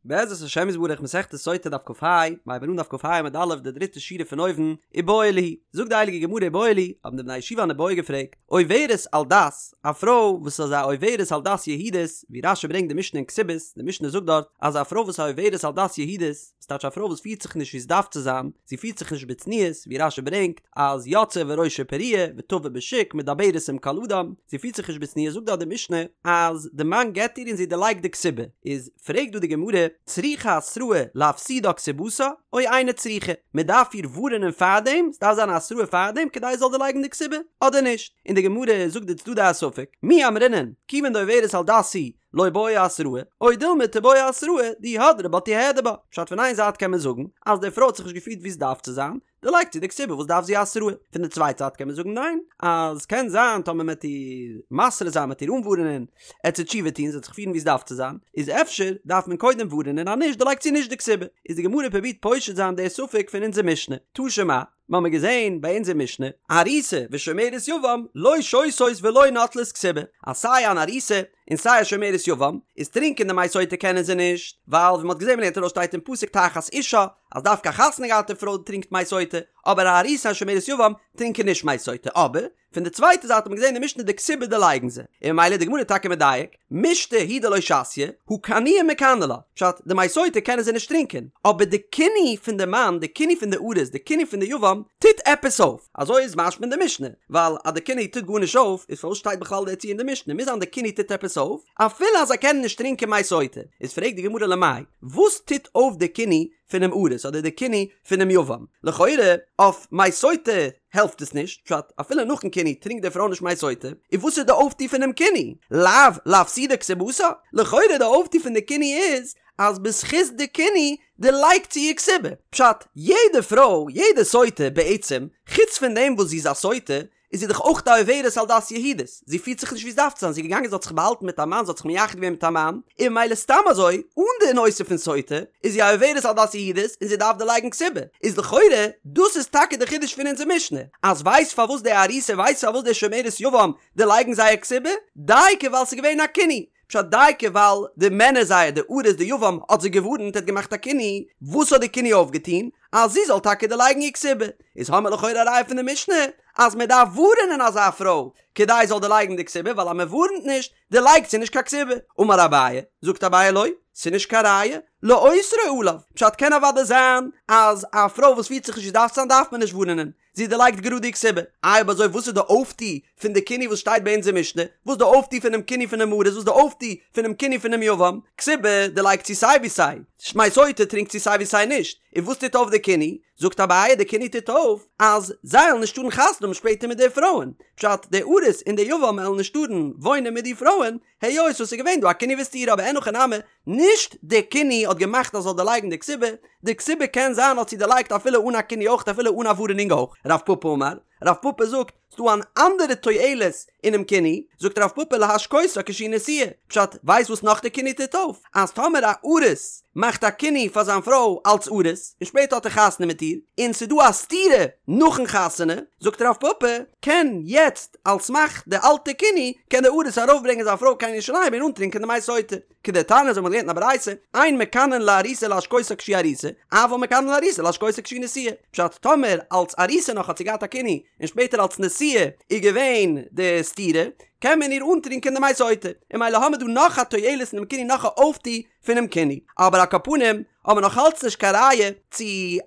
בעזרת השם יתברך מסכת סוטה דף כ"ה, מ'הייבן אן דף כ"ה עמוד א' די דריטע שורה פון אויבן, איבעיא להו, זאגט די הייליגע גמרא איבעיא להו, האבן די בני הישיבה אן איבעיא געפרעגט, עוברת על דת, א פרוי וואס איז א עוברת על דת יהודית, ווי רש"י ברענגט די משנה אין כתובות, די משנה זאגט דארט אז א פרוי וואס איז א עוברת על דת יהודית, ס'טייטש א פרוי וואס פירט זיך נישט ווי ס'דארף צו זיין, זי פירט זיך נישט בצניעות, ווי רש"י ברענגט אז יוצאה וראשה פרוע ותבא בשוק מדברת עם כל אדם, זי פירט זיך נישט בצניעות, זאגט דארט די משנה אז די מאן גט איר און זי דערלייגט די כתובה, איז פרעגט דא די גמרא, צריכה התראה להפסידה כתובתה או אינה צריכה, מען דארף איר ווארענען פארדעם, ס'דארף זיין א התראה פארדעם כדי זי זאל דערלייגן די כתובה, אדער נישט? און די גמרא זאגט די צדדי הספק, מי אמרינן, כיוון דעוברת על דת היא, לא בעיא התראה, או דילמא תיבעי התראה, דאי הדרה בה תיהדר בה. פשט פון איין זייט קען מען זאגן, אז די פרוי האט זיך נישט געפירט ווי עס דארף צו זיין, דערלייגט זי די כתובה וואס דארף זי התראה? פון די צווייטע זייט קען מען זאגן ניין, אז קען זיין טאמער מען וועט איר מתרה זיין מען וועט איר אנווארענען, עט זי תשובה טון זי וועט זיך פירן ווי עס דארף צו זיין, איז אפשר דארף מען קודם ווארענען אז נישט דערלייגט זי נישט די כתובה. איז די גמרא פרובירט פושט זיין די ספק פון אונזער משנה. תא שמע, מ'האמיר געזען ביי אונזער משנה, ארוסה ושומרת יבם לא שותות ולא נוטלות כתובה, אז סיי אן ארוסה און סיי א שומרת יבם, איז טרינקען די מי סוטה קענען זיי נישט, ווייל ווי מ'האט געזען מ'לערנט ארויס שטייט אין פסוק תחת אישה, אז דווקא א חתונה געהאטע פרוי טרינקט מי סוטה, אבער א ארוסה און שומרת יבם טרינקען נישט מי סוטה, אבער פון די צווייטע זייט האט מען געזען אין משנה די כתובה דערלייגן זיי, און ממילא איז די גמרא טאקע מדייק, מישתא הוא דלא שתיא, הא קנויי מקני לה, פשט, די מי סוטה קענען זיי נישט טרינקען, אבער די קינוי פון די מאן, די קינוי פון די ארוס, די קינוי פון די יבם, טוט עפעס אויף, אזוי איז משמע אין די משנה, ווייל אז די קינוי טוט גארנישט אויף, איז פארוואס שטייט בכלל די ציור אין די משנה, מוז זיין די קינוי טוט עפעס אויף, אפילו אז זיי קענען נישט טרינקען מי סוטה, איז פרעגט די גמרא למאי, וואס טוט אויף די קינוי פונעם ארוס אדער די קינוי פונעם יבם? לכאורה אויף מי סוטה העלפט עס נישט, פשט, אפילו נאכן קינוי טרינקט די פרוי נישט מי סוטה, איז וואס איז די אויפטו פונעם קינוי? לאו לאפסודי כתובתה? לכאורה די אויפטו פון די קינוי איז אז בזכות די קינוי דערלייגט זי איר כתובה. פשט, יעדע פרוי, יעדע סוטה בעצם, חוץ פון דעם וואס זי איז א סוטה, איז זי דאך אויך א עוברת על דת יהודית, זי פירט זיך נישט ווי עס דארף צו זיין, זי איז געגאנגען זי האט זיך באהאלטן מיט א מאן, זי האט זיך מייחד געווען מיט א מאן, און ממילא סתם אזוי, אן די נושא פון סוטה, איז זי א עוברת על דת יהודית און זי דארף דערלייגן כתובה, איז לכאורה דאס איז טאקע די חידוש פון אונזער משנה, אז ווייסט פארוואס די ארוסה ווייסט פארוואס די שומרת יבם דערלייגן זייער כתובה, דייקא ווייל ס'איז געווען א קינוי, פשט דייקא ווייל די מענער זייער די ארוס די יבם האט זיי געווארנט ער האט געמאכט א קינוי, וואס האט די קינוי אויפגעטון? אז זי זאל טאקע דערלייגן איר כתובה, איז האמיר לכאורה א ראיה פון די משנה אז מען דארף ווארענען אזא פרוי כדי זי זאל דערלייגן די כתובה ווייל אז מען ווארענט נישט דערלייגט זי נישט קיין כתובה, אמר אביי, זאגט אביי לא, ס'איז נישט קיין ראיה, לאוסרו עליו, פשט קען אוודאי זיין אז א פרוי וואס פירט זיך נישט ווי ס'דארף צו זיין דארף מען נישט ווארענען, זי דערלייגט גראד די כתובה. איי אויב אזוי וואס איז די אויפטו פון די קינוי וואס שטייט ביי אונזער משנה? וואס איז די אויפטו פונעם קינוי פונעם ארוס? וואס איז די אויפטו פונעם קינוי פונעם יבם? כתובה דערלייגט זי סיי ווי סיי. מי סוטה טרינקט זי סיי ווי סיי נישט. און וואס טוט אויף די קינוי? זאגט אביי די קינוי טוט אויף אז זיי עלן נישט טארן חתונה האבן שפעטער מיט די פרויען. פשט, די ארוס און די יבם עלן נישט טארן וואוינען מיט די פרויען, היות וואס איז געווען דא א קינוי וסתירה אבער אין הכי נמי, נישט די קינוי האט געמאכט אז זאל דערלייגן די כתובה, די כתובה קען זיין האט זי דערלייגט אפילו אן א קינוי אויך אפילו אן א ווארענונג אויך, רב פפא אמר, רב פפא זאגט, ס'דא אן אנדערע תועלת אינעם קינוי, זאגט רב פפא להשקותה כשהיא נשואה, פשט, ווייסט וואס נאך די קינוי טוט אויף? אז טאמער א ארוס מאכט א קינוי פאר זיין פרוי אלץ ארוס, און שפעטער האט ער חתונה מיט איר, און ס'דא א סתירה נאכן חתונה, זאגט רב פפא, קען יעצט על סמך די אלטע קינוי קען די ארוס ארויפברענגען זיין פרוי קיין ירושלים און אנטרינקען די מי סוטה. כדתניא אזוי האט מען געלערנט אין א ברייתא, אין מקנין לארוסה להשקותה כשהיא ארוסה, אבל מקנין לארוסה להשקותה כשהיא נשואה. פשט, טאמער אלץ ארוסה נאך האט זי געהאט א קינוי, און שפעטער אלץ נשואה איז געווען די סתירה, קען מען איר אנטרינקען די מי סוטה. און ממילא האמיר דא נאך א תועלת אינעם קינוי נאך א אויפטו פונעם קינוי. אבער על כל פנים, האבן מיר נאך אלץ נישט קיין ראיה צו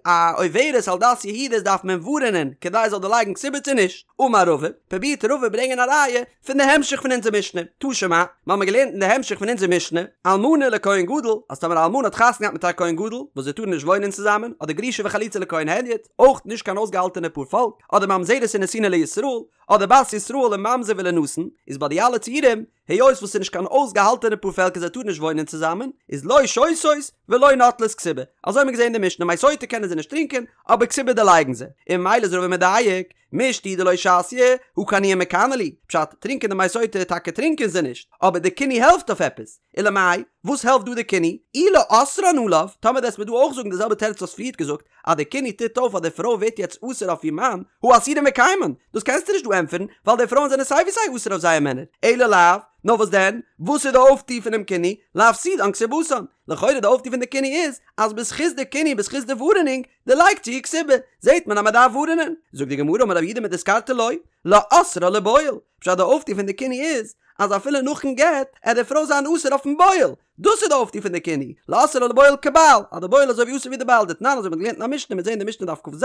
א עוברת על דת יהודית דארף מען ווארענען כדי זאל דערלייגן כתובה צו נישט. אמר רבא, פרובירט רבא ברענגען א ראיה פון די המשך פון אונזער משנה, תא שמע, מיר האבן געלערנט אין די המשך פון אונזער משנה, אלמנה לכהן גדול, אז טאמער א אלמנה האט חתונה געהאט מיט א כהן גדול, וואס זיי טארן נישט וואוינען צוזאמען, אדער גרושה וחלוצה לכהן הדיוט, אויך נישט קיין אויסגעהאלטענע פאר פאלק, אדער ממזרת ונתינה לישראל, אדער בת ישראל לממזר ולנתין, איז ביי די אלע ציורים, היות וואס ס'איז נישט קיין אויסגעהאלטענע פאר פעלקער זיי טארן נישט וואוינען צוזאמען, איז לא שותות ולא נוטלות כתובה. אזוי האבן מיר געזען אין די משנה, מי סוטה קענען זיי נישט טרינקען, אבער כתובה דערלייגן זיי. און ממילא איז רבא מדייק, מישתא הוא דלא שתיא, הא קנויי מקני להו. פשט, טרינקען די מי סוטה טאקע טרינקען זיי נישט, אבער די קינוי העלפט אויף עפעס. ולמאי, וואס העלפט דא די קינוי? אי לאוסרן עליו, טאמער וועסט מיר דא אויך זאגן די זעלבע תירוץ וואס פריערט געזאגט, אז די קינוי טוט אויף אז די פרוי ווערט יעצט אסור אויף איר מאן, הא אסירן וקיימן, דאס קענסטו נישט דא ענטפערן, ווייל די פרויען זענען סיי ווי סיי אסור אויף זייער מענער, אלא לאו, נאר וואס דען? וואס איז די אויפטו פונעם קינוי? להפסידן כתובתן. לכאורה די אויפטו פון די קינוי איז אז בזכות די קינוי בזכות די ווארענונג דערלייגט זי איר כתובה. זעט מען אז מען דארף ווארענען. זאגט די גמרא אמר רב יהודה מדיסקרתא לא, לאוסרה לבועל. פשט די אויפטו פון די קינוי איז אז אפילו נאכן גט עט די פרוי זיין אסור אויפן בועל. דאס איז די אויפטו פון די קינוי, לאוסרה לבועל כבעל, אז די בועל איז אזוי ווי אסור ווי די בעל, דתנן אזוי ווי מ'האט געלערנט אין א משנה, מ'וועט זען די משנה דף כ"ז,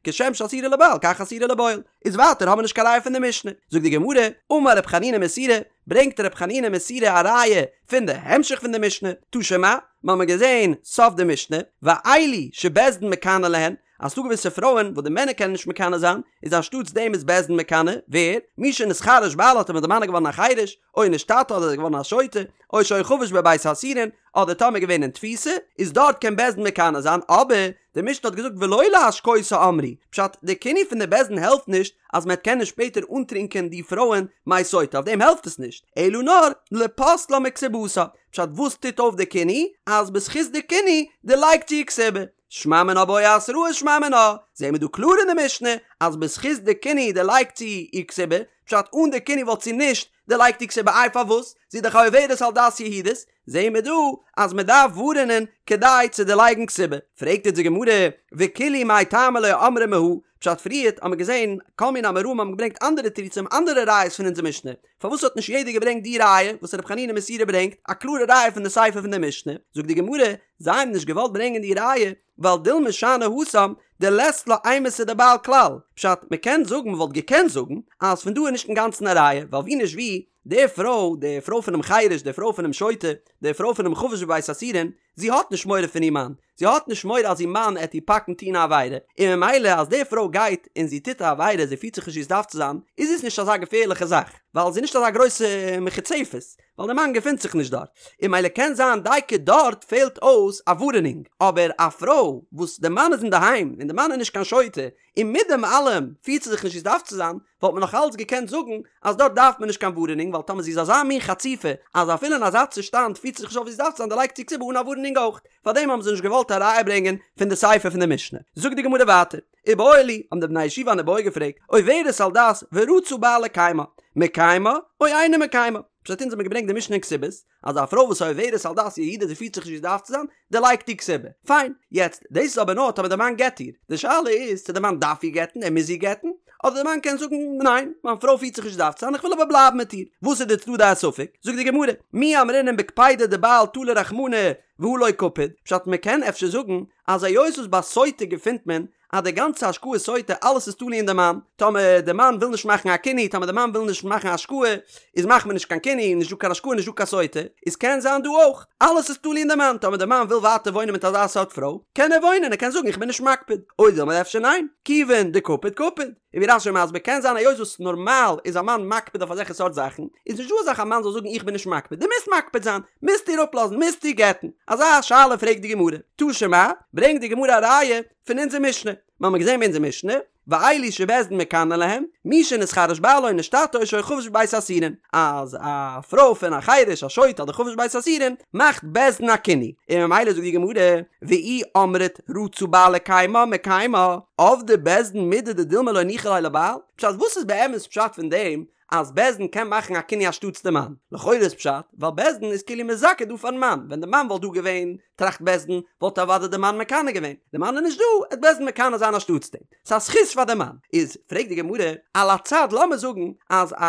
כשם שאסורה לבעל כך אסורה לבועל, איז ווייטער האבן מיר נישט קיין ראיה פון די משנה, זאגט די גמרא, אמר רב חנינא מסורא, ברענגט רב חנינא מסורא א ראיה פון די המשך פון די משנה, תא שמע, מ'האמיר געזען סוף די משנה, ואלו שבית דין מקנא להן, אז ס'דא געוויסע פרויען וואס די מענער קענען נישט מקנא זיין, איז אנשטאטס דעם איז בית דין מקנא, ווער? מי שנתחרש בעלה טאמער די מאן איז געווארן א חירש, או נשתטה אדער איז געווארן א שוטה, או שהיה חבוש בבית האסורין, אדער טאמער געווען אין תפיסה, איז דארט קען בית דין מקנא זיין, אבער די משנה האט געזאגט ולא להשקותה אמרו, פשט, די קינוי פון די בית דין העלפט נישט אז מען קען נישט שפעטער אנטרינקען די פרויען מי סוטה, אויף דעם העלפט עס נישט, אלא נאר לפוסלה מכתובתה, פשט וואס טוט אויף די קינוי? אז בזכות די קינוי דערלייגט זי איר כתובה. שמע מינה בעי התראה שמע מינה, זעהן מיר דא קלאר אין די משנה אז בזכות די קינוי דערלייגט זי איר כתובה, פשט אן די קינוי וואלט זי נישט דערלייגט איר כתובה איי פארוואס? זי איז דאך א עוברת על דת יהודית, זעהן מיר דא אז מען דארף ווארענען כדי צו דערלייגן כתובה, פרעגט אונז די גמרא וכולהו מאי טעמא לא אמרי מהא, פשט פריערט האמיר געזעהן כל מיני אמוראים האבן געברענגט אנדערע תירוצים אנדערע ראיות פון אונזער משנה, פארוואס האט נישט יעדער געברענגט די ראיה וואס ר' חנינא מסורא ברענגט, א קלארע ראיה פון די סיפא פון די משנה, זאגט די גמרא, זיי האבן נישט געוואלט ברענגען די ראיה, ווייל דילמא שאני התם דלית לה אימתא דבעל כלל, פשט, מען קען זאגן, מען וואלט געקענט זאגן, אז פון דא איז נישט אינגאנצן א ראיה, ווייל ווי נישט ווי, די פרוי, די פרוי פונעם חירש, די פרוי פונעם שוטה, די פרוי פונעם חבוש בבית האסורין, זי האט נישט מורא פון איר מאן, זי האט נישט מורא אז איר מאן עט איר פאקן טון א עבירה, און ממילא אז די פרוי גייט און זי טוט א עבירה, זי פירט זיך נישט ווי עס דארף צו זיין, איז עס נישט אזא געפערליכע זאך, ווייל זי איז נישט אזא גרויסע מחוצפת, ווייל די מאן געפינט זיך נישט דארט, און ממילא קען זיין דייקא דארט פעלט אויס א ווארענונג, אבער א פרוי וואס די מאן איז אינדערהיים און די מאן איז נישט קיין שוטה, און מיט דעם אלעם פירט זי זיך נישט ווי עס דארף צו זיין, וואלט מען נאך אלץ געקענט זאגן אז דארט דארף מען נישט קיין ווארענונג ווייל טאמער זי איז אזא מין חצופה אז אפילו אין אזא צושטאנד פירט זי זיך נישט אויף ווי עס דארף צו זיין דערלייגט זי כתובה אן א ווארענונג אויך. פארדעם האבן זיי נישט געוואלט א ראיה ברענגען פון די סיפא פון די משנה. זאגט די גמרא ווייטער, איבעיא להו, האבן די בני הישיבה אן איבעיא געפרעגט, עוברת על דת ורצה בעל לקיימה, מקיימה או אינו מקיימה? פשט אונז האבן געברענגט די משנה אין כתובות, אז א פרוי וואס איז עוברת על דת יהודית זי פירט זיך נישט ווי עס דארף צו זיין, דערלייגט איר כתובה. פיין. יעצט, דאס איז אבער נאר טאמער די מאן גט איר. די שאלה איז צו די מאן דארף איר גט'ן, ער מוז איר גט'ן, אדער די מאן קען זאגן, ניין, מיין פרוי פירט זיך נישט ווי עס דארף צו זיין, איך וויל אבער בלייבן מיט איר. וואס איז די צדדי הספק? זאגט די גמרא, מי אמרינן בקפידא דבעל תלה רחמנא והא לא קפיד, פשט מען קען אפשר זאגן אז היות וואס ביי סוטה געפינט מען אז די גאנצע השקאת סוטה אלעס איז תלוי אין די מאן, טאמער די מאן וויל נישט מאכן א קינוי, טאמער די מאן וויל נישט מאכן השקאה, איז מאכט מען נישט קיין קינוי, נישט דא קיין השקאה נישט דא קיין סוטה, איז קען זיין דא אויך, אלעס איז תלוי אין די מאן, טאמער די מאן וויל ווייטער וואוינען מיט אזא סארט פרוי, קען ער וואוינען, ער קען זאגן איך בין נישט מקפיד, או דילמא אפשר ניין, כיוון דקפיד קפיד, און ווי רש"י מסביר קען זיין היות וואס נארמאל איז א מאן מקפיד אויף אזעלכע סארט זאכן, איז נישט דא אזאך א מאן זאל זאגן איך בין נישט מקפיד, דו מוזט מקפיד זיין, מוזט איר אפלאזן, מוזט איר גט'ן, אזא שאלה פרעגט די גמרא, תא שמע, ברענגט די גמרא א ראיה פון אונזער משנה, מיר האבן געזען אין אונזער משנה, ואלו שבית דין מקנא להם, מי שנתחרש בעלה או נשתטה או שהיה חבוש בבית האסורין, אז א פרוי פון א חירש א שוטה אדער חבוש בבית האסורין מאכט בית דין א קינוי, און ממילא זאגט די גמרא, ואי אמרת רצה בעל לקיימה מקיימה, עבדי בית דין מידי דדילמא לא ניחא ליה לבעל, פשט וואס איז באמת פשט פון דעם אז בית דין קען מאכן א קינוי אנשטאטס די מאן? לכאורה איז פשט ווייל בית דין איז כאילו מזכה דא פארן מאן, ווען די מאן וואלט דא געווען, טראכט בית דין, וואלט אוודאי די מאן מקנא געווען, די מאן איז נישט דא, עט בית דין מקנא זיין אנשטאטס דעם, ס'איז א זכות פאר די מאן. איז פרעגט די גמרא, על הצד לאמיר זאגן אז א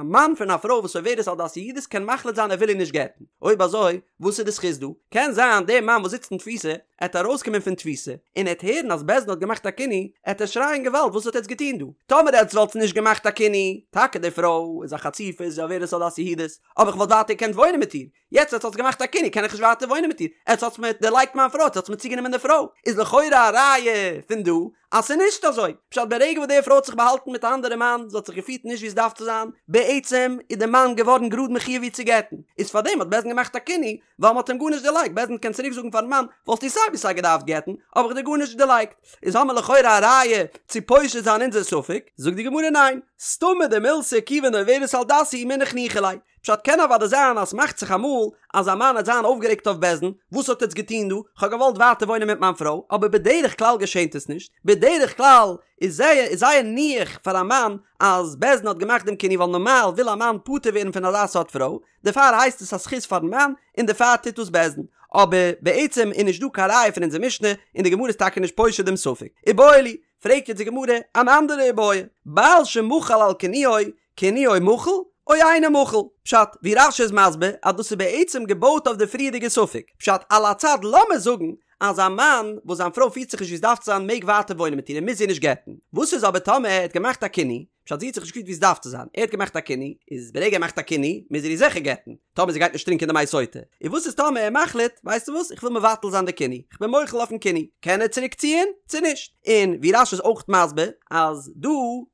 מאן פון א פרוי וואס עוברת על דת יהודית קען מחליט זיין ער וויל איר נישט גט'ן, אויב אזוי וואס איז די זכות דא? קען זיין דער מאן וואס זיצט אין תפיסה עט ארויסקומען פון תפיסה און עט הערן אז בית דין האט געמאכט א קינוי, עט ער שרייען געוואלד וואס האט עטץ געטון דא? טאמער עטץ וואלטס נישט געמאכט א קינוי, טאקע די פרוי איז א חצופה איז עוברת על דת יהודית, אבער איך וואלט ווייטער געקענט וואוינען מיט איר, יעצט עטס האטס געמאכט א קינוי קען איך נישט ווייטער וואוינען מיט איר, עטס האטס מיר דערלייגט מיין פרוי, עטס האטס מיר צוגענומען די פרוי, איז לכאורה א ראיה פון דא אז ס'איז נישט אזוי, פשט ברגע וואס די פרוי האט זיך באהאלטן מיט א אנדערע מאן, זי האט זיך געפירט נישט ווי עס דארף צו זיין, בעצם איז די מאן געווארן גראד מחויב איר צו גט'ן, איז פארדעם האט בית דין געמאכט א קינוי, ווייל מ'האט אים גארנישט דערלייגט, בית דין קען צוריק זאגן פארן מאן, וואלסטו סיי ווי סיי געדארפט גט'ן, האב איך דיר גארנישט דערלייגט, איז האמיר לכאורה א ראיה צו פושט זיין אונזער ספק, זאגט די גמרא ניין, סתמא דמילתא כיוון דעוברת על דת היא מינח ניחא ליה. פשט קען אוודאי זיין אז ס'מאכט זיך אמאל אז א מאן העט זיין אויפגערעגט אויף בית דין, וואס האט עטץ געטון דא, כ'האב געוואלט ווייטער וואוינען מיט מיין פרוי, אבער בדרך כלל געשענט עס נישט, בדרך כלל איז זייער איז זייער ניחא פאר א מאן אז בית דין האט געמאכט דעם קינוי ווייל נארמאל וויל א מאן פטור ווערן פון אזא סארט פרוי, דערפאר הייסט עס א זכות פארן מאן און דערפאר טוט דאס בית דין. אבער בעצם איז נישט דא קיין ראיה פון אונזער משנה און די גמרא איז טאקע נישט פושט דעם ספק. איבעיא להו, פרעגט יעצט די גמרא אן אנדערע איבעיא, בעל שמחל על קינויו, קינויו מחול או אינו מחול? פשט, ווי רש"י איז מסביר אז דאס איז בעצם געבויט אויף די פריערדיגע ספק. פשט, על הצד לאמיר זאגן אז א מאן וואס זיין פרוי פירט זיך נישט ווי עס דארף צו זיין מעג ווייטער וואוינען מיט איר און מוז איר נישט גט'ן. וואס איז אבער טאמער ער האט געמאכט א קינוי, פשט זי האט זיך נישט געפירט ווי עס דארף צו זיין, ער האט געמאכט א קינוי, איז ברגע ער מאכט א קינוי מוז ער איר זיכער גט'ן, טאמער זי גייט נישט טרינקען די מי סוטה. און וואס איז טאמער ער מחליט, ווייסטו וואס, איך וויל מבטל זיין די קינוי, איך בין מוחל אויפן קינוי, קען ער צוריק ציען צו נישט? און ווי רש"י איז אויך מסביר, אז דא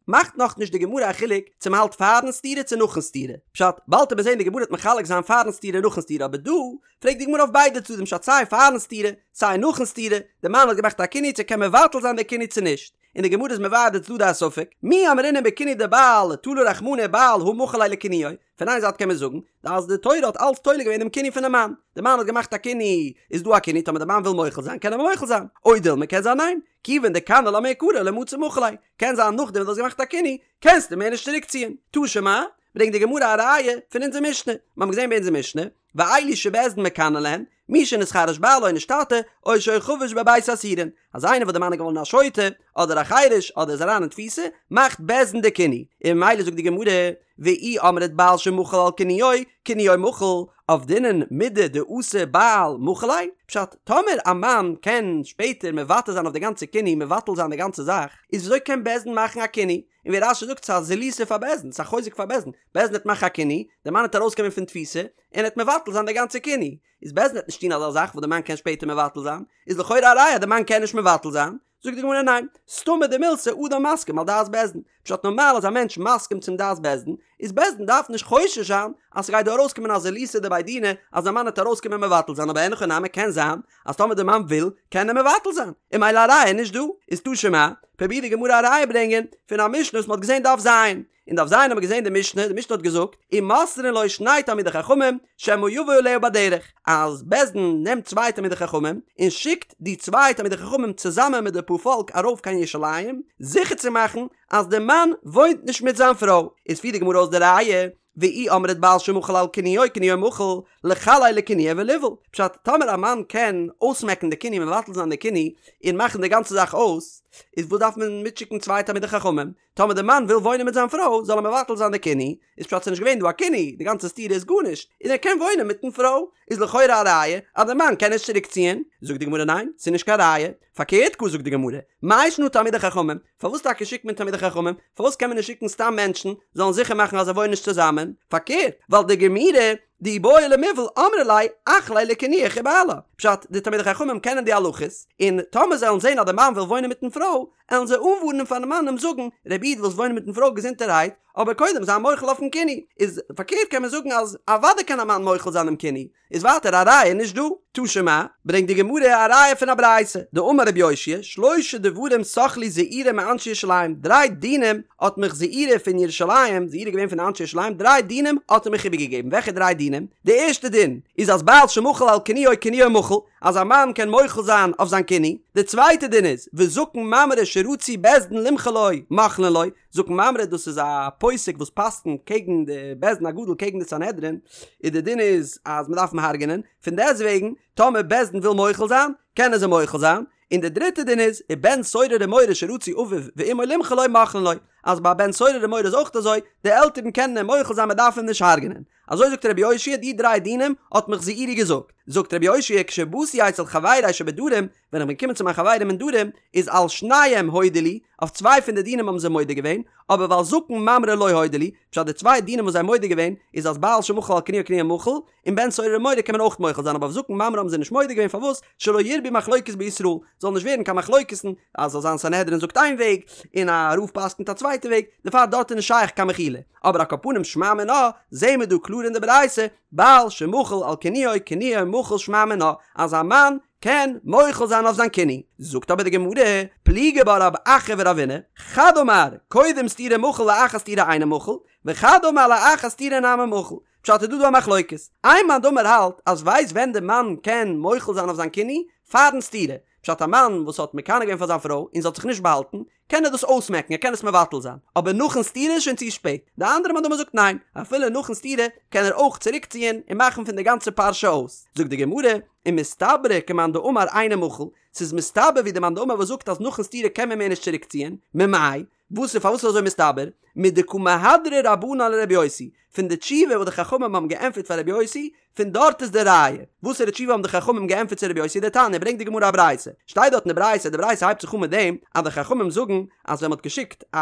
מאכט נאכנישט די גמרא א חילוק צו מ'האלט פארן סתירה צו נאכן סתירה, פשט, באלד וועט מען זען די גמרא וועט מחלק זיין פארן סתירה און נאכן סתירה אבער דא פרעגט די גמרא אויף ביידע צדדים פשט סיי פארן סתירה סיי נאכן סתירה, די מאן האט געמאכט א קינוי צו קען מבטל זיין די קינוי צו נישט, און די גמרא איז מבאר די צדדי הספק, מי אמרינן בקינוי דבעל תלה רחמנא בעל הא מחל ליה לקינויו, פון איין זייט קען מען זאגן אז די תורה האט אלץ תולה געווען דעם קינוי פונעם מאן, די מאן האט געמאכט א קינוי איז דא א קינוי טאמער די מאן וויל מוחל זיין קען ער מוחל זיין, או דילמא קען זיין ניין, כיוון דקני לה מעיקרא לא מצי מחיל ליה, קען זיין נאכדעם וואס דו האסט געמאכט א קינוי קענסטו מער נישט צוריק ציען, תא שמע, ברענגט די גמרא א ראיה פון אונזער משנה, מיר האבן געזען ביי אונזער משנה, ואלו שבית דין מקנין להן, מי שנתחרש בעלה או נשתטה, או שהיה חבוש בבית האסורין, אז איינער וואס די מאן איז געווארן א שוטה, אדער א חירש, אדער איז אריין אין תפיסה, מאכט בית דין די קינוי, און ממילא זאגט די גמרא, ואי אמרת בעל שמחל על קינויו, קינויו מחול, עבדינן מידי דאתי בעל מחיל ליה, פשט, טאמער א מאן קען שפעטער מוותר זיין אויף די גאנצע קינוי, מבטל זיין די גאנצע זאך, איז וויאזוי קען בית דין מאכן א קינוי? און ווי רש"י זאגט ס'איז א זילותא פאר בית דין, ס'איז א חוזק פאר בית דין, בית דין וועט מאכן א קינוי, די מאן וועט ארויסקומען פון תפיסה, און ער וועט מבטל זיין די גאנצע קינוי, איז בית דין וועט נישט טון אזא זאך וואס די מאן קען שפעטער מבטל זיין, איז לכאורה א ראיה אז די מאן קען נישט מבטל זיין, זאגט די גמרא ניין, סתמא דמילתא אדם מסכים על דעת בית דין, פשט נארמאל איז א מענטש מסכים צום דעת בית דין, איז בית דין דארף נישט חושש זיין אז ס'גייט דא ארויסקומען א זילותא דבי דינא אז די מאן וועט ארויסקומען מבטל זיין אבער אין הכי נמי קען זיין אז טאמער די מאן וויל קען ער מבטל זיין און ממילא א ראיה איז נישט דא, איז תא שמע, פרובירט די גמרא א ראיה ברענגען פון א משנה וואס מ'האט געזען דף ז. אין דף ז האבן מיר געזען די משנה, די משנה האט געזאגט, ומוסרין לו שני תלמידי חכמים, שמא יבוא עליה בדרך, אז בית דין נעמט צוויי תלמידי חכמים, און שיקט די צוויי תלמידי חכמים צוזאמען מיט די פארפאלק ארויף קיין ירושלים, זיכער צו מאכן אז די מאן וואוינט נישט מיט זיין פרוי. איז פירט די גמרא אויס די ראיה, ואי אמרת בעל שמחל על קינויו קינויו מחול, לחל ליה לקינויה וליבעול. פשט, טאמער א מאן קען אויסמעקן די קינוי מבטל זיין די קינוי, און מאכן די גאנצע זאך אויס, איז וואס דארף מען מיטשיקן צוויי תלמידי חכמים? טאמער די מאן וויל וואוינען מיט זיין פרוי זאל ער מבטל זיין די קינוי, איז פשט ס'נישט געווען דא א קינוי, די גאנצע סתירה איז גארנישט, און ער קען וואוינען מיטן פרוי, איז לכאורה א ראיה אז די מאן קען נישט צוריק ציען, זאגט די גמרא ניין, ס'איז נישט קיין ראיה, פארקערט גאר זאגט די גמרא, מאי שנא תלמידי חכמים, פארוואס טאקע שיקט מען תלמידי חכמים, פארוואס קען מען נישט שיקן סתם מענטשן זאלן זיכער מאכן אז זיי וואוינען נישט צוזאמען, פארקערט, ווייל דגמירי דאי בעי למיבעל אמרי ליה אחליה לקינויך ובעלה, פשט, די תלמידי חכמים קענען די הלכות, און טאמער זיי וועלן זען אז די מאן וויל וואוינען מיטן פרוי, עלן זיי אנווארענען פארן מאן און זאגן, רבי איד ווילסט וואוינען מיטן פרוי געזונטערהייט, אבער קודם זיי מוחל אויפן קינוי, איז פארקערט קען מען זאגן אז אוודאי קען א מאן מוחל זיין דעם קינוי, איז ווייטער א ראיה נישט דא. תא שמע, ברענגט די גמרא א ראיה פון א ברייתא, דאמר רבי יאשיה, שלשה דברים סח לי זעירי מאנשי ירושלים, דריי דינים האט מיך זעירי פון ירושלים, זעירי איז געווען פון די אנשי ירושלים, דריי דינים האט ער מיך איבערגעגעבן, וועלכע דריי דינים? די ערשטע דין איז אז בעל שמחל על קינויו קינויו מחול, אז א מאן קען מוחל זיין אויף זיין קינוי, די צווייטע דין איז, וזקן ממרא שרצו בית דין למחול לו, מוחלין לו, זקן ממרא דאס איז א פוסק וואס פסק'נט קעגן די בית דין הגדול קעגן די סנהדרין, און די דין איז אז מען דארף אים הרג'נען, פון דעסט וועגן טאמער בית דין וויל מוחל זיין, קענען זיי מוחל זיין, און די דריטע דין איז, ובן סורר ומורה שרצו אביו ואמו למחול לו מוחלין לו, אז ביי א בן סורר ומורה איז אויך אזוי, די עלטערן קענען אים מוחל זיין מען דארף אים נישט הרג'נען. אזוי זאגט רבי יאשיה די דריי דינים האט מיך זעירי געזאגט, זאגט רבי יאשיה כשבאתי אצל חברי שבדרום, ווען איך בין געקומען צו מיין חברים אין דרום, איז על שנים הודו לי, אויף צוויי פון די דינים האבן זיי מודה געווען, אבער ועל זקן ממרא לא הודו לי, פשט די צוויי דינים וואס זיי האבן מודה געווען, איז אז בעל שמחל על קינויו קינויו מחול, און בן סורר ומורה קען מען אויך מוחל זיין אבער אויף זקן ממרא האבן זיי נישט מודה געווען פארוואס שלא ירבו מחלוקת בישראל זאל נישט ווערן קיין מחלוקת'ן אז זאל זיין סנהדרין זאגט איין וועג און א רב פסק'נט א צווייטע וועג דערפאר דארט איז נישט שייך קיין מחילה אבער על כל פנים שמע מינה זעהן מיר דא קלאר אין די ברייתא בעל שמחל על קינויו קינויו מחול שמע מינה אז א מאן קען מוחל זיין אויף זיין קינוי זאגט אבער די גמרא פליגי בה רב אחא ורבינא חד אמר קודם סתירה מחול לאחר סתירה אינו מחול וחד אמר לאחר סתירה נמי מחול. פשט איז דא דא א מחלוקת. איין מאן דאמר האלט אז ווייסט ווען די מאן קען מוחל זיין אויף זיין קינוי? פארן סתירה. פשט א מאן וואס האט מקנא געווען פאר זיין פרוי און זי האט זיך נישט באהאלטן, קען ער דאס אויסמעקן, ער קען עס מבטל זיין, אבער נאכן סתירה איז שוין צו שפעט. די אנדערע מאן דאמר זאגט ניין, אפילו נאכן סתירה קען ער אויך צוריקציען און מאכן פון די גאנצע פרשה אויס. זאגט די גמרא, ומסתברא כמאן דאמר אינו מחול, ס'איז מסתבר ווי די מאן דאמר וואס זאגט אז נאכן סתירה קען מען מער נישט צוריקציען, ממאי? וואס איז פארוואס איז אזוי מסתבר? מדקא מהדרי רבנן לרבי יוסי, פון די תשובה וואס די חכמים האבן געענטפערט פאר רבי יוסי, פון דארט איז די ראיה. וואסערע תשובה האבן די חכמים געענטפערט צו רבי יוסי? דתניא, ברענגט די גמרא א ברייתא, שטייט דארט אין די ברייתא, די ברייתא הייבט זיך אן מיט דעם אז די חכמים זאגן אז ווען מ'האט געשיקט א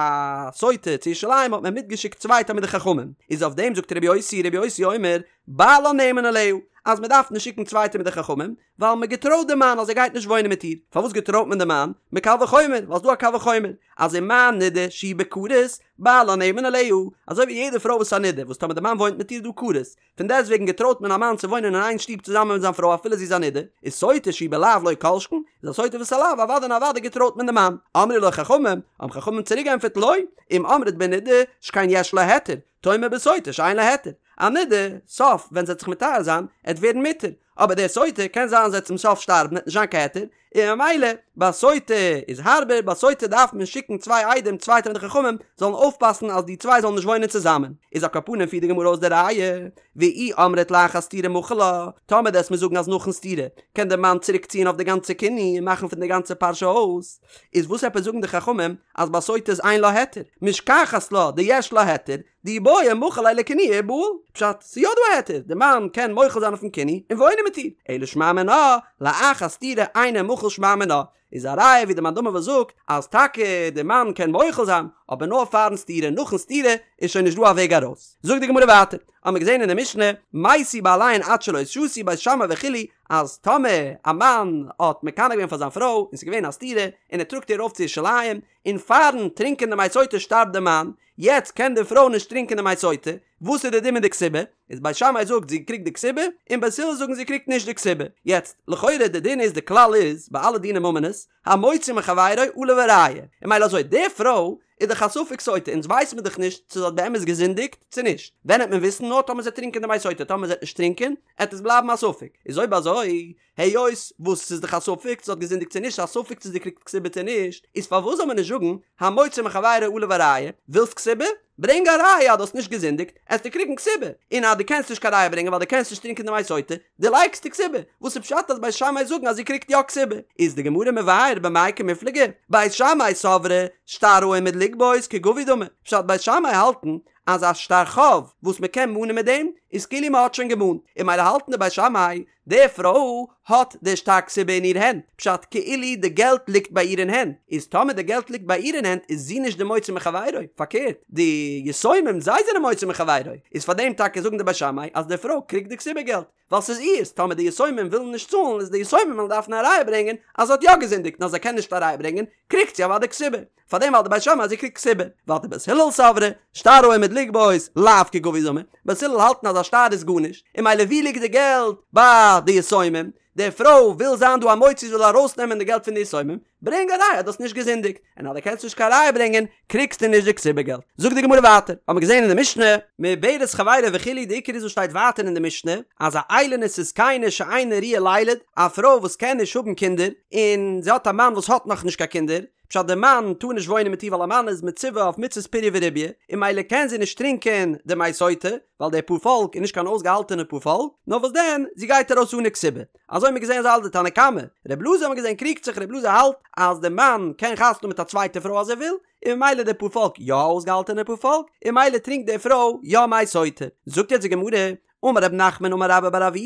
סוטה צו ירושלים האט מען מיטגעשיקט צוויי תלמידי חכמים, איז אויף דעם זאגט רבי יוסי, רבי יוסי אומר, בעלה נאמן עליה, אז מ'דארף נישט שיקן צוויי תלמידי חכמים, ווייל מען געטרויט די מאן אז ער גייט נישט וואוינען מיט איר, פארוואס געטרויט מען די מאן? מקל וחומר, ווייל ס'דא א קל וחומר, אז ומה נידה שהיא בכרת, בעלה נאמן עליה, אזוי ווי יעדע פרוי וואס איז א נידה, וואס טאמער די מאן וואוינט מיט איר איז דא כרת, פון דעסטוועגן געטרויט מען א מאן צו וואוינען אין איין שטוב צוזאמען מיט זיין פרוי אפילו זי איז א נידה, איז סוטה שהיא בלאו לא כל שכן, איז א סוטה וואס איז א לאו, אוודאי און אוודאי געטרויט מען די מאן. אמרו לו חכמים, האבן חכמים צוריק געענטפערט לא, אם אמרת בנידה, שכן יש לה היתר, תאמר בסוטה שאין לה היתר, א נידה, סוף ווען זי וועט זיך מטהר זיין, עט ווערן מותר, אבער די סוטה קען זיין זי וועט צום סוף שטארבן עט נישט זיין קיין היתר, און ממילא ביי סוטה איז הארבער, ביי סוטה דארף מען שיקן צוויי עדים צוויי תלמידי חכמים זאלן אויפפאסן אז די צוויי זאלן נישט וואוינען צוזאמען, איז על כל פנים פירט די גמרא אויס די ראיה, ואי אמרת לאחר סתירה מחיל לה, טאמער דו וועסט מיר זאגן אז נאכן סתירה קען די מאן צוריק ציען אויף די גאנצע קינוי און מאכן פון די גאנצע פרשה אויס, איז וואס עפעס זאגן די חכמים אז ביי סוטה איז אין לה היתר, משכחת לה דיש לה היתר, דאי בעי מחיל ליה לקינויה ובעיל, פשט, ס'איז יא דא א היתר, די מאן קען מוחל זיין אויפן קינוי און וואוינען מיט איר, אלא שמע מינה, לאחר סתירה אינו מחול שמע מינה, איז א ראיה ווי די מאן דאמר וואס זאגט אז טאקע די מאן קען מוחל זיין, אבער נאר פארן סתירה, נאכן סתירה איז שוין נישט דא א וועג ארויס. זאגט די גמרא ווייטער, האמיר געזען אין די משנה, מתו בעליהן עד שלא שתו בית שמאי וכו', אז טאמער א מאן האט מקנא געווען פאר זיין פרוי און ס'איז געווען א סתירה און ער טראגט איר ארויף צו ירושלים, און פארן טרינקען די מי סוטה שטארבט די מאן, יעצט קען די פרוי נישט טרינקען די מי סוטה, וואס איז די דין מיט די כתובה? איז בית שמאי זאגט זי קריגט די כתובה, און בית הלל זאגן זי קריגט נישט די כתובה. יעצט, לכאורה די דין איז די כלל איז ביי אלע דיני ממונות, המוציא מחבירו עליו הראיה, און ממילא אזוי די פרוי איז דאך א ספק סוטה, אונז ווייס מיר דאך נישט צו זי האט באמת געזינדיגט צו נישט, ווען העט מען וויסן? נאר טאמער זי העט טרינקען די מי סוטה, טאמער זי העט נישט טרינקען, העט עס בלייבן א ספק, איז אויב אזוי היות וואס ס'איז דאך א ספק צו זי האט געזינדיגט צו נישט, א ספק צו זי קריגט כתובה צו נישט, איז פארוואס זאל מען נישט זאגן המוציא מחבירו עליו הראיה, ווילסט כתובה? ברענג א ראיה אז דו האסט נישט געזינדיגט, עסטו קריגן כתובה, און אז דו קענסט נישט קיין ראיה ברענגען ווייל דו קענסט נישט טרינקען די מי סוטה, דערלייגסטו כתובה, וואס איז פשט אז בית שמאי זאגן אז זי קריגט יא כתובה? איז די גמרא מבאר במאי קמיפלגי, בית שמאי סברי שטר העומד לגבות כגבוי דמי, פשט בית שמאי האלטן אז א שטר חוב וואס מען קען מאנען מיט דעם איז כאילו מען האט שוין געמאנט, און ממילא האלטן די בית שמאי די פרוי האט די שטר כתובה אין איר הענט, פשט כאילו די געלט ליגט ביי איר אין הענט, איז טאמער די געלט ליגט ביי איר אין הענט איז זי נישט די מוציא מחבירו, פארקערט די יתומים זיי זענען מוציא מחבירו, איז פאר דעם טאקע זאגן די בית שמאי אז די פרוי קריגט די כתובה געלט, ווייל ס'איז אירס, טאמער די יתומים ווילן נישט צאלן איז די יתומים וועלן דארפן א ראיה ברענגען אז זי האט יא געזינדיגט און אז זיי קענען נישט א ראיה ברענגען קריגט זי אוודאי כתובה. פאר דעם האלט די בית שמאי אז זי קריגט כתובה, ווייטער בית הלל סברי, שטר העומד לגבות, לאו כגבוי דמי, בית הלל האלטן אז א שטר איז גארנישט, און ממילא ווי ליגט די געלט? ביי די יתומים, די פרוי וויל זיין דא א מוציא זי וויל ארויסנעמען די געלט פון די יתומים, ברענג א ראיה אז דו האסט נישט געזינדיגט, און אז דו קענסט נישט קיין ראיה ברענגען, קריגסטו נישט די כתובה געלט. זאגט די גמרא ווייטער, האמיר געזען אין די משנה, מעוברת חברו וכו', די עיקר איז וואס שטייט ווייטער אין די משנה, אז א איילונית וזקנה שאינה ראויה לילד, א פרוי וואס קען נישט האבן קינדער, און זי האט א מאן וואס האט נאכנישט קיין קינדער, פשט די מאן טאר נישט וואוינען מיט איר ווייל א מאן איז מצווה אויף מצות פריה ורביה און ממילא קען זי נישט טרינקען די מי סוטה ווייל די פארפאלק איז נישט קיין אויסגעהאלטענע פארפאלק נאר וואס דען זי גייט ארויס אן א כתובה אזוי האט מען געזען אזוי האלט די תנא קמא ר' אלעזר האט מען געזען קריגט זיך ר' אלעזר האלט אז די מאן קען חתונה האבן מיט א צווייטע פרוי אז ער וויל און ממילא די פארפאלק יא א אויסגעהאלטענע פארפאלק און ממילא טרינקט די פרוי יא מי סוטה זאגט יעצט די גמרא אמר רב נחמן אמר רבה בר אבוה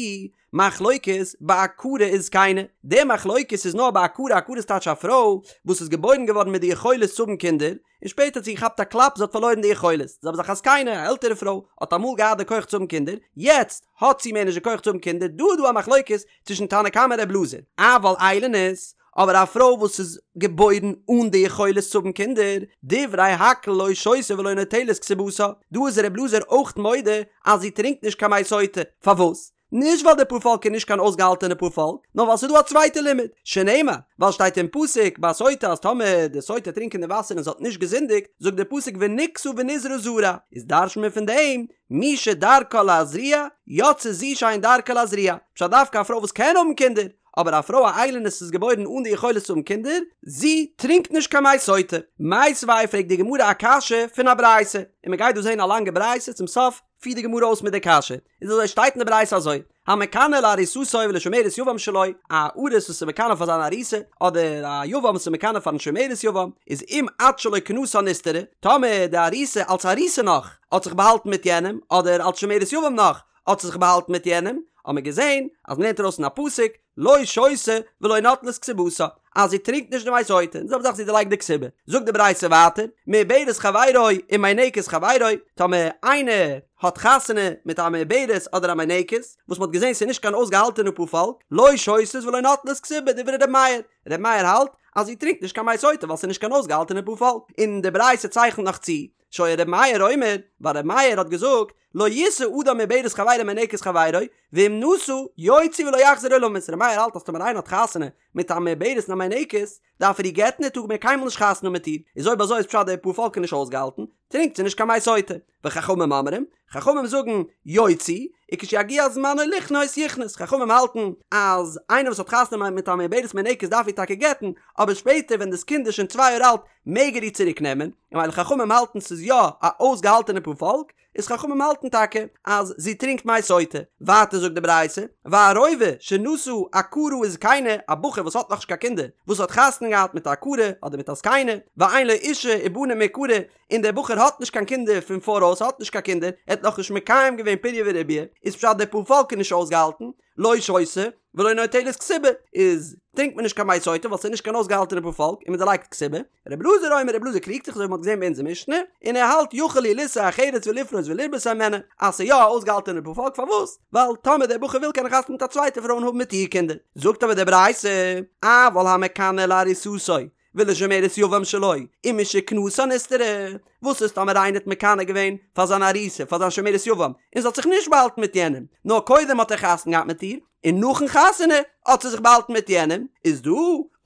מחלוקת בעקרה וזקנה, די מחלוקת איז נאר בעקרה, עקרה איז טייטש א פרוי וואס איז געבוירן געווארן מיט די יכולת צו האבן קינדער, און שפעטער האט זי געכאפט א קלאפ זי האט פארלוירן די יכולת, די זעלבע זאך א זקנה, א עלטערע פרוי, האט אמאל געהאט די כח צו האבן קינדער, יעצט האט זי מער נישט די כח צו האבן קינדער, דא איז דא א מחלוקת צווישן תנא קמא און ר' אלעזר, אבל איילונית, אבער א פרוי וואס איז געבוירן אן די יכולת צו האבן קינדער, דברי הכל לא שותה ולא נוטלת כתובתה, דא איז ר' אלעזר אויך מודה אז זי טרינקט נישט קיין מי סוטה, פארוואס? נישט ווייל די פארפאלק איז נישט קיין אויסגעהאלטענע פארפאלק, נאר ווייל ס'איז דא א צווייטע לימוד, שנאמר, ווייל שטייט אין פסוק ביי סוטה אז טאמער די סוטה טרינקען די וואסער און זי האט נישט געזינדיגט, זאגט די פסוק ונקתה ונזרעה זרע, איז דרש'נט מען פון דעם, מי שדרכה להזריע, יצאה זו שאין דרכה להזריע, פשט דווקא א פרוי וואס קען האבן קינדער, אבער א פרוי א איילונית איז געבוירן אן די יכולת צו האבן קינדער, זי טרינקט נישט קיין מי סוטה. מיתיבי פרעגט די גמרא א קשיא פון א ברייתא, און מען גייט דא זען א לאנגע ברייתא, צום סוף פירט די גמרא אויס מיט די קשיא, איז אזוי שטייט אין די ברייתא אזוי, המקנא לארוסתו ולשומרת יבם שלו, א ארוס וואס איז מקנא פאר זיין ארוסה, אדער א יבם וואס איז מקנא פארן שומרת יבם, איז אם עד שלא כנסה נסתרה, טאמער די ארוסה אלס ארוסה נאך האט זיך באהאלטן מיט יענעם, אדער אלס שומרת יבם נאך האט זי זיך באהאלטן מיט יענעם, האט מען געזען אז מ'לערנט ארויס אין א פסוק, לא שותה ולא נוטלת כתובתה, אז זי טרינקט נישט די מי סוטה, און די זעלבע זאך זי דערלייגט די כתובה. זאגט די ברייתא ווייטער, מעוברת חברו ומינקת חברו, טאמער איינער האט חתונה מיט א מעוברת אדער א מינקת, וואס מ'האט געזען ס'איז נישט קיין אויסגעהאלטענע פארפאלק, לא שותות ולא נוטלות כתובה, דברי ר' מאיר, ר' מאיר האלט אז זי טרינקט נישט קיין מי סוטה ווייל ס'איז נישט קיין אויסגעהאלטענע פארפאלק, און די ברייתא צייכנט נאך צו, שהיה ר' מאיר אומר, ווייל ר' מאיר האט געזאגט, לא ישא אדם מעוברת חברו ומינקת חברו, ואם נשא, יוציא ולא יחזיר עולמית, ר' מאיר האלט אז טאמער איינער האט חתונה מיט א מעוברת און א מינקת, דארף ער איר גט'ן ער טאר מער קיינמאל נישט חתונה האבן מיט איר, איז אויב אזוי איז פשט די פארפאלק איז נישט אויסגעהאלטן, טרינקט זי נישט קיין מי סוטה. וחכמים אומרים, חכמים זאגן, יוציא, וכשיגיע זמנו לכנוס יכנוס, חכמים האלטן אז איינער וואס האט חתונה מיט א מעוברת מינקת דארף איר טאקע גט'ן, אבער שפעטער ווען דאס קינד איז שוין צוויי יאר אלט מעג ער איר צוריק נעמען, און ווייל חכמים האלטן ס'איז יא א אויסגעהאלטענע פארפאלק, איז חכמים האלטן טאקע אז זי טרינקט מי סוטה. ווייטער זאגט די ברייתא, והרובא שנשא עקרה וזקנה, א בחור וואס האט נאכנישט קיין קינדער, וואס האט חתונה געהאט מיט א עקרה אדער מיט א זקנה, ואין לו אישה ובנים מעיקרא, און דער בחור האט נישט קיין קינדער פון פאראויס, האט נישט קיין קינדער, ער האט נאכנישט מקיים געווען פריה ורביה, איז פשט דער פארפאלק איז נישט אויסגעהאלטן, לא שותה ולא נוטלת כתובה, איז טרינקט מען נישט קיין מי סוטה ווייל ס'איז נישט קיין אויסגעהאלטענע פארפאלק און מען דערלייגט כתובה, רבי אלעזר אומר רבי אלעזר קריגט זיך אזוי ווי מ'האט געזען ביי אונזער משנה, און ער האלט יכול הוא לישא אחרת ולפרות ולרבות הימנה, אז ס'איז יא א אויסגעהאלטענע פארפאלק פארוואס? ווייל טאמער דער בחור וויל קען ער חתונה מיט א צווייטע פרוי און האבן מיט איר קינדער, זאגט אבער די ברייתא, אבל המקנא לארוסתו ולשומרת יבם שלו, ומשכנסה נסתרה, וואס איז טאמער איינער האט מקנא געווען פאר זיין ארוסה פאר זיין שומרת יבם, און זי האט זיך נישט באהאלטן מיט יענעם, נאר קודם האט ער חתונה געהאט מיט איר, און נאכן חתונה האט זי זיך באהאלטן מיט יענעם, איז דא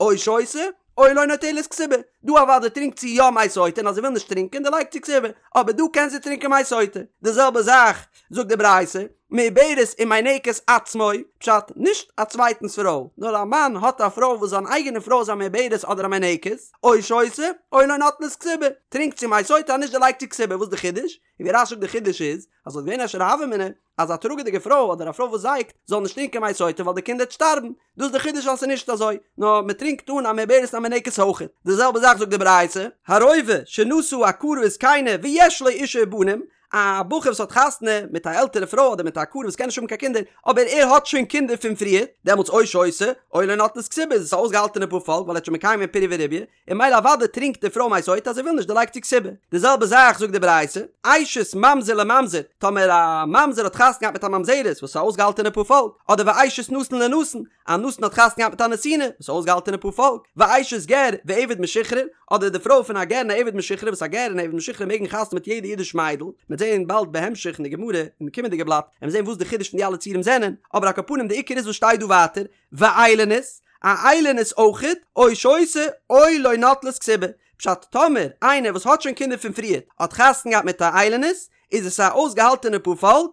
או שותה או לא נוטלת כתובה, דא אוודאי טרינקט זי יא מי סוטה און אז זי וויל נישט טרינקען דערלייגט זי כתובה, אבער דא קען זי טרינקען מי סוטה, די זעלבע זאך זאגט די ברייתא, מעוברת ומינקת עצמו, פשט, נישט א צווייטנס פרוי, נאר א מאן האט א פרוי וואס זיין אייגענע פרוי איז א מעוברת אדער א מינקת, או שותה, או לא נוטלת כתובה, טרינקט זי מי סוטה אז נישט דערלייגט זי כתובה, וואס איז די חידוש? און ווי רש"י זאגט די חידוש איז, אז ס'וואלט געווען אפשר א הוה אמינא, אז א טראגעדיגע פרוי אדער א פרוי וואס זייגט, זאל נישט טרינקען מי סוטה ווייל די קינד וועט שטארבן, דאס איז די חידוש אז ס'איז נישט אזוי, נאר מען טרינקט אן א מעוברת און א מינקת אויכעט. די זעלבע זאך זאגט די ברייתא, הרובא שנשא עקרה וזקנה ויש לו אישה ובנים, א בחור וואס האט חתונה מיט א עלטערע פרוי אדער מיט א עקרה וואס קען נישט האבן קיין קינדער, אבער ער האט שוין קינדער פון פריער, דעמאלטס או שותה, או לא נוטלת כתובה איז עס א אויסגעהאלטענע פארפאלק ווייל ער האט שוין מקיים געווען פריה ורביה, און ממילא אוודאי טרינקט די פרוי מי סוטה אז זי וויל נישט דערלייגט זי כתובה. די זעלבע זאך זאגט די ברייתא, אשת ממזר לממזר, טאמער א ממזר האט חתונה געהאט מיט א ממזרת וואס איז א אויסגעהאלטענע פארפאלק, אדער ואשת נתין לנתין, א נתין האט חתונה געהאט מיט א נתינה, וואס איז א אויסגעהאלטענע פארפאלק, ואשת גר ועבד משוחרר, אדער די פרוי פון א גר און א עבד משוחרר וואס א גר און א עבד משוחרר מעגן חתונה מיט יעדע אידיש מיידל, מ'וועט זעהן באלד בהמשך אין די גמרא אין די קומענדיגע בלאט, וועלן מיר זעהן וואס די חידוש פון די אלע ציורים זענען, אבער על כל פנים די עיקר איז וואס שטייט דא ווייטער, ואיילונית, א איילונית אויכעט, או שותה או לא נוטלת כתובה, פשט טאמער איינער וואס האט שוין קינדער פון פריערט האט חתונה געהאט מיט א איילונית, איז עס א אויסגעהאלטענע פארפאלק,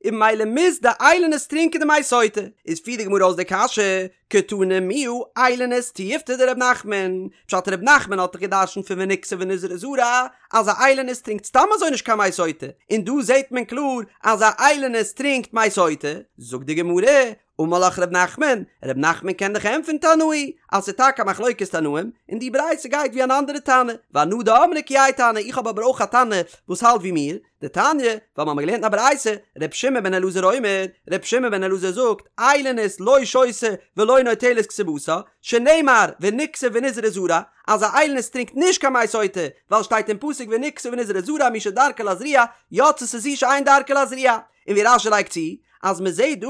און ממילא מוז די איילונית טרינקען די מי סוטה, איז פירט די גמרא אויס די קשיא, קתני מיהא איילונית תיובתא דרב נחמן, פשט רב נחמן האט דאך גע'דרש'נט פון ונקתה ונזרעה זרע אז א איילונית טרינקט סתם אזוי נישט קיין מי סוטה, און דא זעט מען קלאר אז א איילונית טרינקט מי סוטה, זאגט די גמרא, אמר לך ר' נחמן, ר' נחמן קען דיך ענטפערן תנאי, אז ס'איז טאקע א מחלוקת תנאים, און די ברייתא גייט ווי אן אנדערע תנא, ואנא דאמרי כי האי תנא, איך האב אבער אויך א תנא וואס האלט ווי מיר, דתניא, ווייל מ'האמיר געלערנט אין א ברייתא, ר' שמעון בן אלעזר אומר, ר' שמעון בן אלעזר זאגט, איילונית לא שותה ולא נוטלת כתובתה, שנאמר ונקתה ונזרעה זרע, אז א איילונית טרינקט נישט קיין מי סוטה, ווייל שטייט אין פסוק ונקתה ונזרעה זרע מי שדרכה להזריע, יצתה זו שאין דרכה להזריע, און ווי רש"י לייגט צו, אז מען זעט דא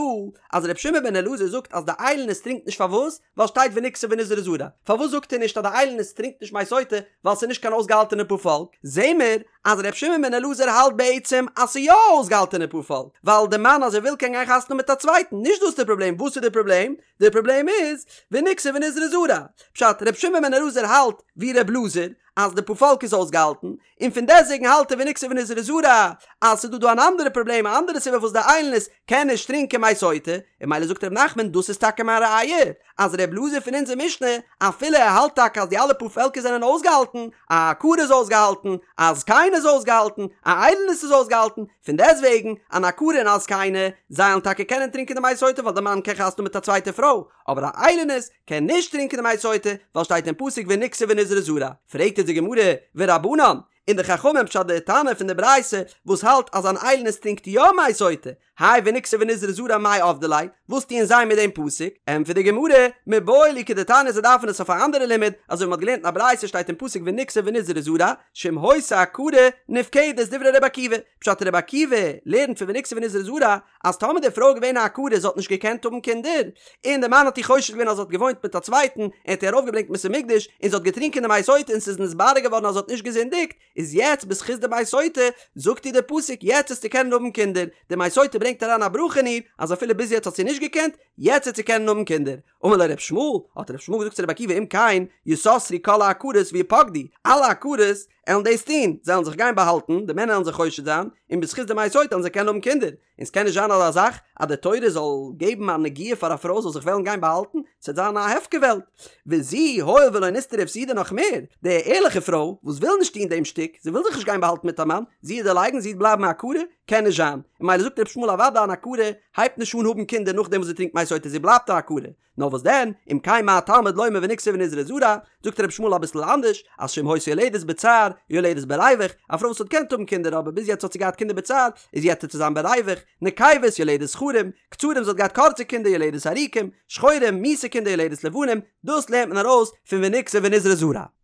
אז ר' שמעון בן אלעזר זאגט אז די איילונית טרינקט נישט פארוואס? ווייל שטייט ונקתה ונזרעה זרע, פארוואס זאגט ער נישט אז די איילונית טרינקט נישט מי סוטה ווייל ס'איז נישט קיין אויסגעהאלטענע פארפאלק? זעהן מיר אז ר' שמעון בן אלעזר האלט בעצם אז ס'איז יא א אויסגעהאלטענע פארפאלק, ווייל די מאן אז ער וויל קען גיין חתונה האבן מיט א צווייטן, נישט דאס איז די פראבלעם, וואס איז די פראבלעם? די פראבלעם איז ונקתה ונזרעה זרע, פשט ר' שמעון בן אלעזר האלט ווי ר' אלעזר אז די פארפאלק איז אויסגעהאלטן, און פון דעסטוועגן האלט ער ונקתה ונזרעה זרע אז ס'איז דא דא אן אנדערע פראבלעם א אנדערע סיבה וואס די איילונית קען נישט טרינקען מי סוטה, און ממילא זאגט ר' נחמן דאס איז טאקע מיין ראיה אז ר' אלעזר פון אונזער משנה אפילו ער האלט טאקע אז די אלע פארפעלקער זענען אויסגעהאלטן, א עקרה איז אויסגעהאלטן, א זקנה איז אויסגעהאלטן, א איילונית איז אויסגעהאלטן, פון דעסטוועגן אן עקרה און א זקנה זיי וועלן טאקע קענען טרינקען די מי סוטה ווייל די מאן קען חתונה האבן מיט א צווייטע פרוי, אבער א איילונית קען נישט טרינקען די מי סוטה ווייל שטייט אין פסוק ונקתה ונזרעה זרע, פרעגט אונז די גמרא ורבנן, און די חכמים פשט די תנא פון די ברייתא וואס האלט אז אן איילונית טרינקט יא מי סוטה, האי ונקתה ונזרעה זרע מאי עבדי ליה, וואס טוען זיי מיט דעם פסוק? ענטפערט די גמרא, מיבעי להו כדתניא זיי דארפן עס אויף א אנדערע לימוד, אזוי ווי מ'האט געלערנט אין א ברייתא שטייט אין פסוק ונקתה ונזרעה זרע, שאם היתה עקרה נפקדת דברי ר' עקיבא, פשט ר' עקיבא לערנט פון ונקתה ונזרעה זרע אז טאמער די פרוי איז געווען א עקרה זי האט נישט געקענט האבן קינדער, און די מאן האט איר חושד געווען אז זי האט געוואוינט מיט א צווייטן, ער האט איר ארויפגעברענגט אין בית המקדש, און זי האט געטרינקען די מי סוטה און ס'איז נתברר געווארן אז זי האט נישט געזינדיגט, איז יעצט בזכות די מי סוטה, זאגט איר די פסוק יעצט וועסטו קענען האבן קינדער, די מי סוטה ברענגט אריין א ברכה אין איר, אז אפילו ביז יעצט האט זי נישט געקענט, יעצט וועט זי קענען האבן קינדער. אמר לו ר' ישמעאל, האט ר' ישמעאל געזאגט צו רבי עקיבא אם כן, יסתרו כל העקרות ויפקדו, אלע עקרות עלן דאס טון, זיי עלן זיך גיין באהאלטן, די מענער עלן זיי חושד זיין, און בזכות די מי סוטה עלן זיי קענען האבן קינדער, און ס'קען נישט זיין אזא זאך אז די תורה זאל געבן א נגיעה פאר א פרוי זאל זיך וועלן גיין באהאלטן, ס'וועט זיין א הפקר וועלט. וזו, הואיל ולא נסתרה הפסידה נאך מער, די ערליכע פרוי וואס וויל נישט טון דעם שטיק, זי וויל זיך נישט גיין באהאלטן מיט א מאן, זי וועט דערלייגן, זי וועט בלייבן א עקרה, קען נישט זיין. און ממילא זאגט ר' ישמעאל אוודאי אן עקרה הייבט נישט אן האבן קינדער נאכדעם וואס זי טרינקט מי סוטה, זי בלייבט א עקרה. נאר וואס דען, אם כן מה תלמוד לומר ונקתה ונזרעה זרע, זאגט רבי ישמעאל אביסל אנדערש, אז שאם היתה יולדת בצער, יולדת בריווח, א פרוי וואס האט געקענט האבן קינדער אבער ביז יעצט האט זי געהאט קינדער בצער, איז יעצט וועט זי זיין בריווח, נקבות יולדת זכרים, קצרים זי האט געהאט קורצע קינדער יולדת ארוכים, שחורים, מיאוסע קינדער יולדת לבנים, דאס לערנט מען ארויס פון ונקתה ונזרעה זרע.